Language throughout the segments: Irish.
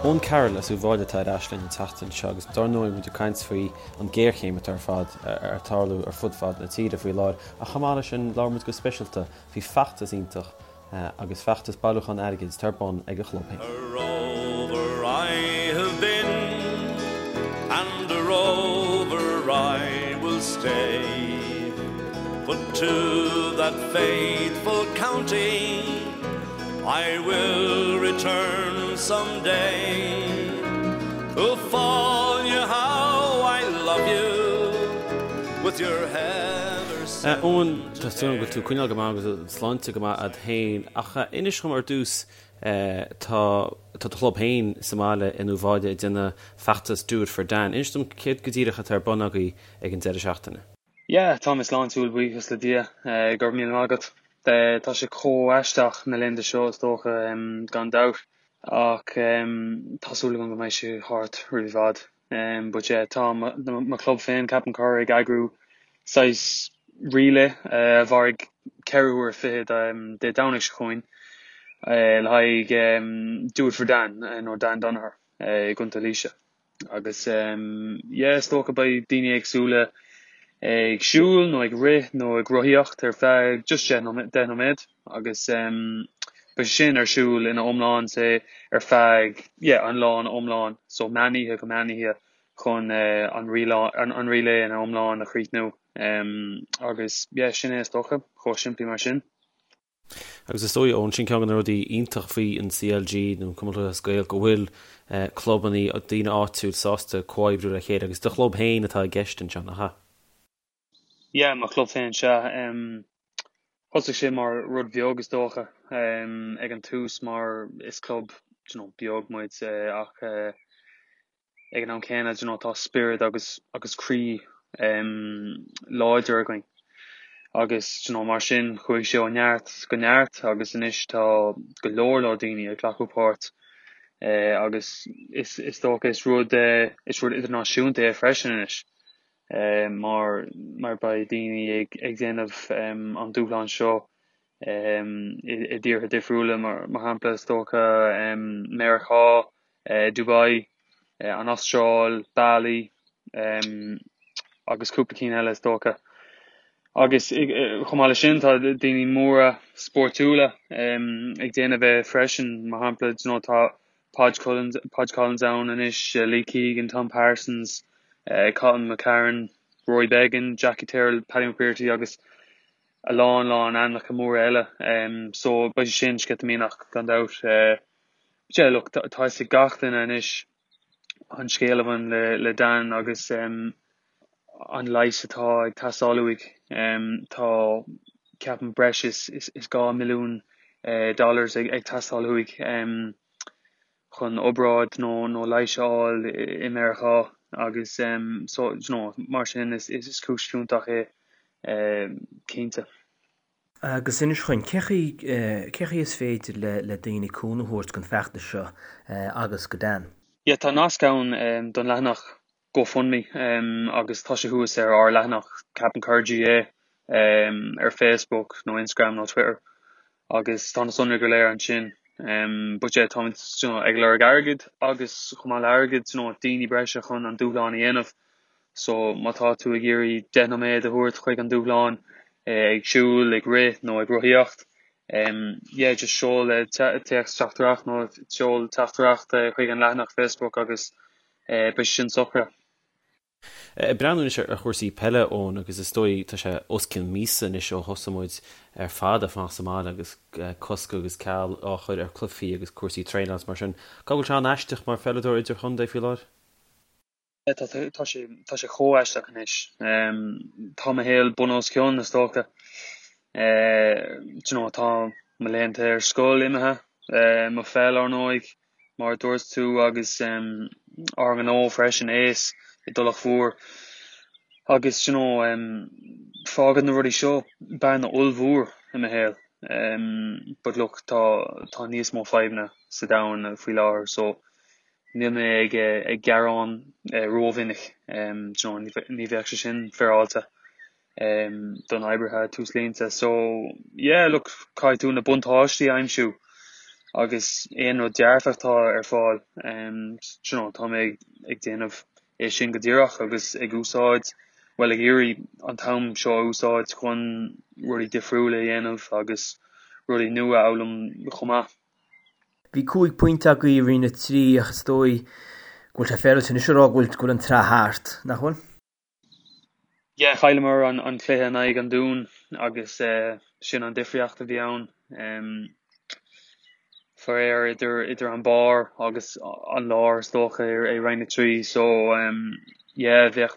Eoin Carroll as Uíbh Fhailí atá ar ais linn an tseachtain seo agus dár ndóigh muid ag caint faoi an géarchéim atá ar fad ar tarlú ar fud fad na tíre faoi láthair ach chomh maith leis sin labhair muid go speisialta faoi feachtas iontach agus feachtas bailiúchán airgid atá ar bun ag a chlub féin. A rover I have been and a rover I will stay But to that faithful county I will return some day Uíbh Fhailí how I love you with your heather Eoin, tá súil agam go bhfuil tú ag coinneáil go maith agus an tsláinte go maith a'd féin ach inis dhom ar dtús tá tá do chlub féin sa mbaile in Uíbh Fhailí ag déanamh feachtas Do It For Dan. Inis dom céard go díreach atá ar bun agaibh ag an deireadh seachtaine. Yeah, tá mé sláintiúil, buíochas le Dia. Go raibh míle maith agat. Tá sé chomh aisteach na laethanta seo is dócha, gan dabht, ach tá súil agam go mbeidh sé thart roimh i bhfad. But yeah, tá mo chlub féin, Cappincur, ag eagrú saghas relay a mhairfidh ceithre huaire fichead Dé Domhnaigh seo chugainn le haghaidh Do It For Dan nó Dan Donoher i gContae Laoise. Agus yeah, is dócha beidh daoine éagsúla ag siúl nó ag rith nó ag rothaíocht ar feadh just 10 nóiméad agus beidh sé sin ar siúl ina iomlán say ar feadh yeah an lá ina iomlán so meán oíche go meán oíche chun an an relay ina iomlán a chríochnú agus yeah sin é is dócha, chomh simplí mar sin. Agus is dóigh, Eoin, sin ceann de na rudaí iontach faoi an CLG nó an Cumann Lúthchleas Gael go bhfuil clubannaí, daoine áitiúil sásta comhoibriú le chéile agus do chlub féin atá i gceist anseo, nach ea? Yeah, mo chlub féin, sea. Thosaigh sé mar rud bheag is dócha ag an tús mar is club, you know, beag muid ach ag an am céanna, you know, tá spiorad agus agus croí láidir againn agus, you know, mar sin chuaigh sé ó neart go neart agus anois tá go leor leor daoine ag glacadh páirt agus is is dócha is rud is rud idirnáisiúnta é freisin anois mar mar beidh daoine ag ag déanamh an dúshlán seo i dtíortha difriúla mar mar shampla is dócha Meiriceá Dubai, an Astráil, Bali agus cúpla cinn eile is dócha. Agus chomh maith leis sin tá daoine móra spórtúla ag déanamh é freisin, mar shampla you know tá Podge Collins, Podge Collins ann anois, Lee Keegan, Tom Parsons, Cathal McCarron, Rory Beggan, Jackie Tyrrell, Paddy McBrearty agus a lán lán ainmneacha móra eile. So beidh sé sin sceitimíneach gan dabht. Yeah, look, tá fhios ag gach duine anois an scéal a bhain le Dan agus an leigheas atá ag teastáil uaidh. Tá, ceapaim, breis is 2 mhilliún dollars ag teastáil uaidh chun obráid nó leigheas a fháil i Meiriceá agus so, you know, mar sin is cúis fiúntach é cinnte. Agus inis dhúinn, cé chaoi is féidir le daoine cúnamh a thabhairt don feachtas seo agus go Dan? Yeah, tá nasc ann don leathanach GoFundMe agus tá sé thuas ar ár leathanach Cappincur GAA ar Facebook nó Instagram nó Twitter agus tá na sonraí go léir ansin. But yeah, táimid you know, ag lorg airgid agus chomh maith le airgead, you know, daoine breise chun an dúshlán a dhéanamh. So má tá tú ag iarraidh 10 nóiméad a thabhairt chuig an dúshlán, ag siúl, ag rith nó ag rothaíocht, yeah, just seol téacs teachtaireacht nó seol teachtaireacht chuig an leathanach Facebook agus beidh sé sin socraithe. Ag breathnú anois ar chúrsaí peile, Eoin, agus is dóigh tá sé os cionn míosa anois ó thosaigh muid ar fad ag fanacht sa mbaile agus cosc agus ceal á chur ar chluichí agus cúrsaí traenála is mar sin. Caithfidh go bhfuil sé an-aisteach mar pheileadóir idirchontae faoi láthair? Tá sé tá sé chomh aisteach anois. Tá mo shaol bun os cionn, is dócha. Do you know, tá mo laethanta ar scoil imithe, mo pheil, ar ndóigh, mar a dúirt tú, agus ár ngnó freisin, Ace, i dTulach Mhór. Agus, do you know, fágann na rudaí seo bearna ollmhór i mo shaol. But look, tá tá níos mó fadhbanna sa domhan faoi láthair, so Níl mé ag gearán rómhinic, ní bheadh sé sin féaráilte don oibrithe túslínte. So, yeah, look, caithfidh tú na buntáistí a aimsiú. Agus aon rud dearfach atá ar fáil, you know, tá mé ag déanamh é sin go díreach agus ag úsáid, bhuel ag iarraidh an t-am seo a úsáid chun rudaí difriúla a dhéanamh agus rudaí nua a fhoghlaim chomh maith. Bhí 5 pointe agaibh i Roinn 3 ach is dóigh go bhfuil sé féaráilte anois a rá go bhfuil an tsraith thart, nach bhfuil? Yeah, chailleamar an cluiche in aghaidh an Dúin agus sin an difríocht a bhí ann. Faraor idir idir an barr agus an lár is dócha i Roinn 3 so yeah bheadh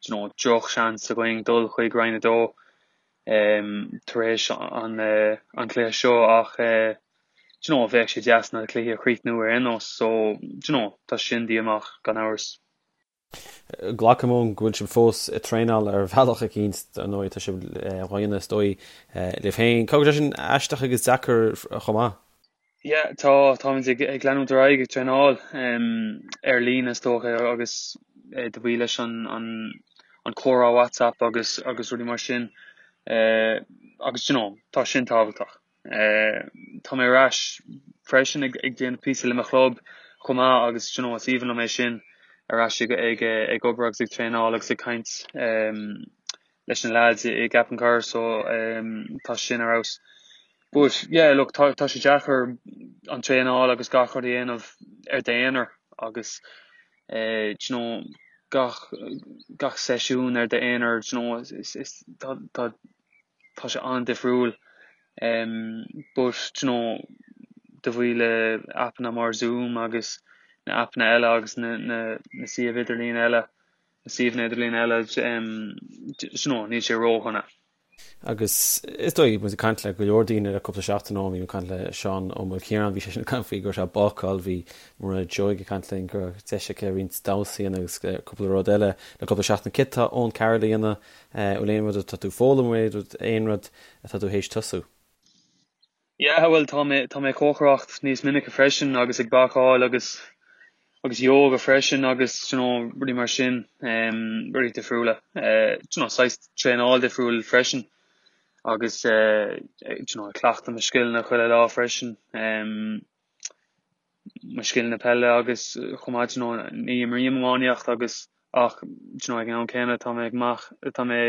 you know droch seans againn dul chuig Roinn 2 tar éis an an cluiche seo ach you know bheadh sé deas na cluichí a chríochnú ar aon nós so you know tá sin díomách gan amhras. Glacaim Eoin go bhfuil sibh fós ag traenáil ar bhealach eicínt, ar ndóigh tá sibh á dhéanamh is dóigh libh féin. Caithfidh go bhfuil sé sin aisteach agus deacair chomh maith? Yeah, tá, táimid ag ag leanúint ar aghaidh ag traenáil ar líne is dócha agus de bhuí leis an an an comhrá WhatsApp agus agus rudaí mar sin agus you know tá sin tábhachtach. Tá mé ar ais freisin ag déanamh píosa le mo chlub chomh maith agus you know is aoibhinn liom é sin, ar ais ag ag obair agus ag traenáil agus ag caint leis na lads i gCappencar so tá sin ar fheabhas. But yeah look tá tá sé deacair an traenáil agus gach rud a dhéanamh ar d'aonar agus you know gach gach seisiún ar d'aonar you know is is tá tá tá sé an-difriúil but you know de bhuí le aipeanna mar Zoom agus na aipeanna eile agus na na na suíomh idirlín eile, na suíomhanna idirlín eile you know níl sé ródhona. Agus is dóigh, muid ag caint le go leor daoine le cúpla seachtain ó bhí mé ag caint le Seán Ó Maoilchiaráin, bhí seisean ag caint faoi go raibh sé ag bácáil, bhí Mairéad Seoighe ag caint linn go raibh deis aici roinnt damhsa a dhéanamh agus cúpla rud eile le cúpla seachtain. Céard tá Eoin Carroll a dhéanamh Bhfuil aon rud atá tú ag foghlaim, aon rud atá tú théis tosú? Yeah, bhuel tá mé, tá mé ag cócaireacht níos minice freisin agus ag bácáil agus, agus yoga freisin agus you know rudaí mar sin, em, rudaí difriúla. Eh, you know saghas traenáil difriúil freisin agus eh, you know ag cleachtadh mo scileanna chuile lá freisin. Em, mo scileanna peile agus chomh maith you know ní imrím iománaíocht agus ach you know ag an am céanna tá mé ag amach tá mé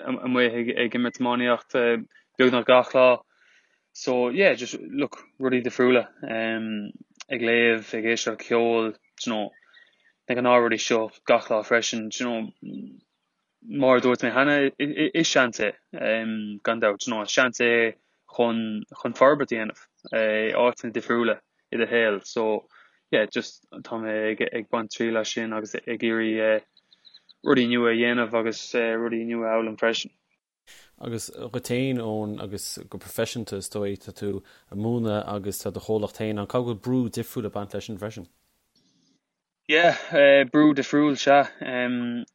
amuigh ag ag imirt iománaíocht beagnach gach lá so yeah just look rudaí difriúla um ag léamh ag éisteacht le ceol you know na gnáthrudaí seo gach lá freisin you know Mar a dúirt mé cheana, is seans é, gan dabht, you know, is seans é chun chun forbairt a dhéanamh i áiteanna difriúla i do shaol. So, yeah, just tá mé ag ag baint triail as sin agus ag iarraidh rudaí nua a dhéanamh agus rudaí nua a fhoghlaim freisin. Agus dhuit féin, Eoin, agus go proifisiúnta is dóigh, tá tú ag múineadh agus tá do chomhlacht féin ann, caithfidh go bhfuil brú difriúil ag baint leis sin freisin? Yeah, brú difriúil, sea.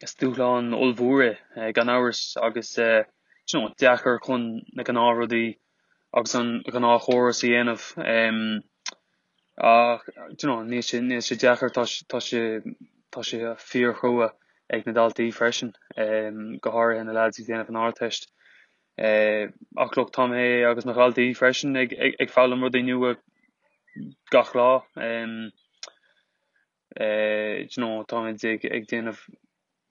Is dúshlán ollmhór é, gan amhras, agus you know deacair chun na gnáthrudaí agus an gnáthchóras a dhéanamh. Ach you know níl sé, níl sé deacair, tá sé, tá sé, tá sé fíorchrua ag na daltaí freisin, go háirithe na lads ag déanamh an Ardteist. Ach look, tá mé agus mo dhaltaí freisin ag, ag, ag foghlaim rudaí nua gach lá. You know, táimid ag, ag déanamh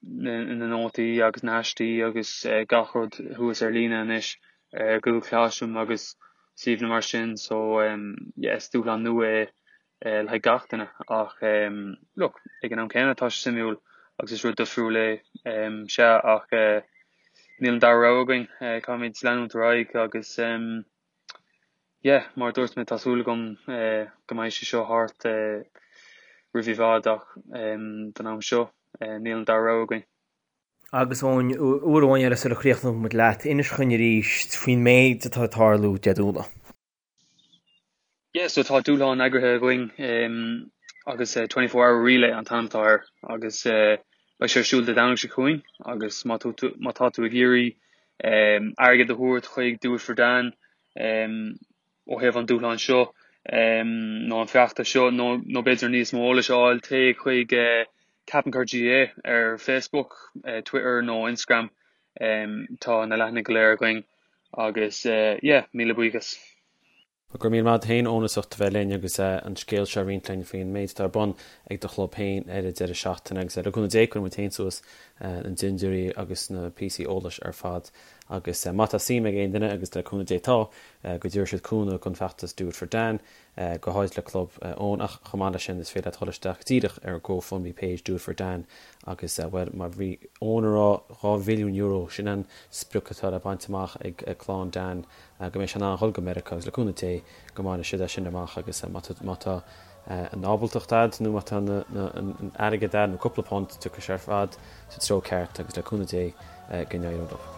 na, na nótaí agus na haistí agus gach rud thuas ar líne anois ar Google Classroom agus suíomhanna mar sin so yeah, is dúshlán nua é le haghaidh gach duine ach look, ag an am céanna tá sé suimiúil agus is rud difriúil é, sea ach níl an dara rogha againn, caithfimid leanúint ar aghaidh agus yeah, mar a dúirt mé tá súil agam go mbeidh sé seo thart roimh i bhfad ach don am seo níl an dara rogha againn. Agus Eoin, uair amháin eile sula chríochnóidh muid leat, inis dhúinn arís faoin méid atá ag tarlú Dé Domhnaigh. Yeah, so tá dúshlán eagraithe againn agus 24 Hour Relay an t-ainm atá air agus beidh sé ar siúl Dé Domhnaigh seo chugainn agus má tá tú má tá tú ag iarraidh airgead a thabhairt chuig Do It For Dan ó thaobh an dúshlán seo nó an feachtas seo nó nó b'fhéidir níos mó eolais a fháil téigh chuig Cappincur GAA ar Facebook, Twitter nó Instagram tá na leathanaigh go léir againn agus yeah míle buíochas. Go raibh míle maith agat féin Eoin as ucht a bheith linn agus an scéal seo a roinnt linn faoin méid atá ar bun ag do chlub féin ar an deireadh seachtaine agus le cúnamh Dé cuirfidh muid féin suas na dintiúirí agus na píosaí eolais ar fad agus má tá suim ag aon duine agus le cúnamh Dé tá go dtabharfaidh siad cúnamh don bhfeachtas Do It For Dan go háirid le club Eoin ach chomh maith leis sin is féidir leat dul isteach díreach ar GoFundMe page Do It For Dan agus bhuel mar bhí Eoin a rá €2 mhilliún sin an sprioc atá le baint amach ag clann Dan go mbeidh sé in ann dhul go Meiriceá agus le cúnamh Dé go mbainfidh siad é sin amach agus má tá an ábaltacht a'd nó má tá an airgead a'd nó cúpla punt tiocfaidh sé ar fad sa treo ceart agus le cúnamh Dé go n-éireoidh leo.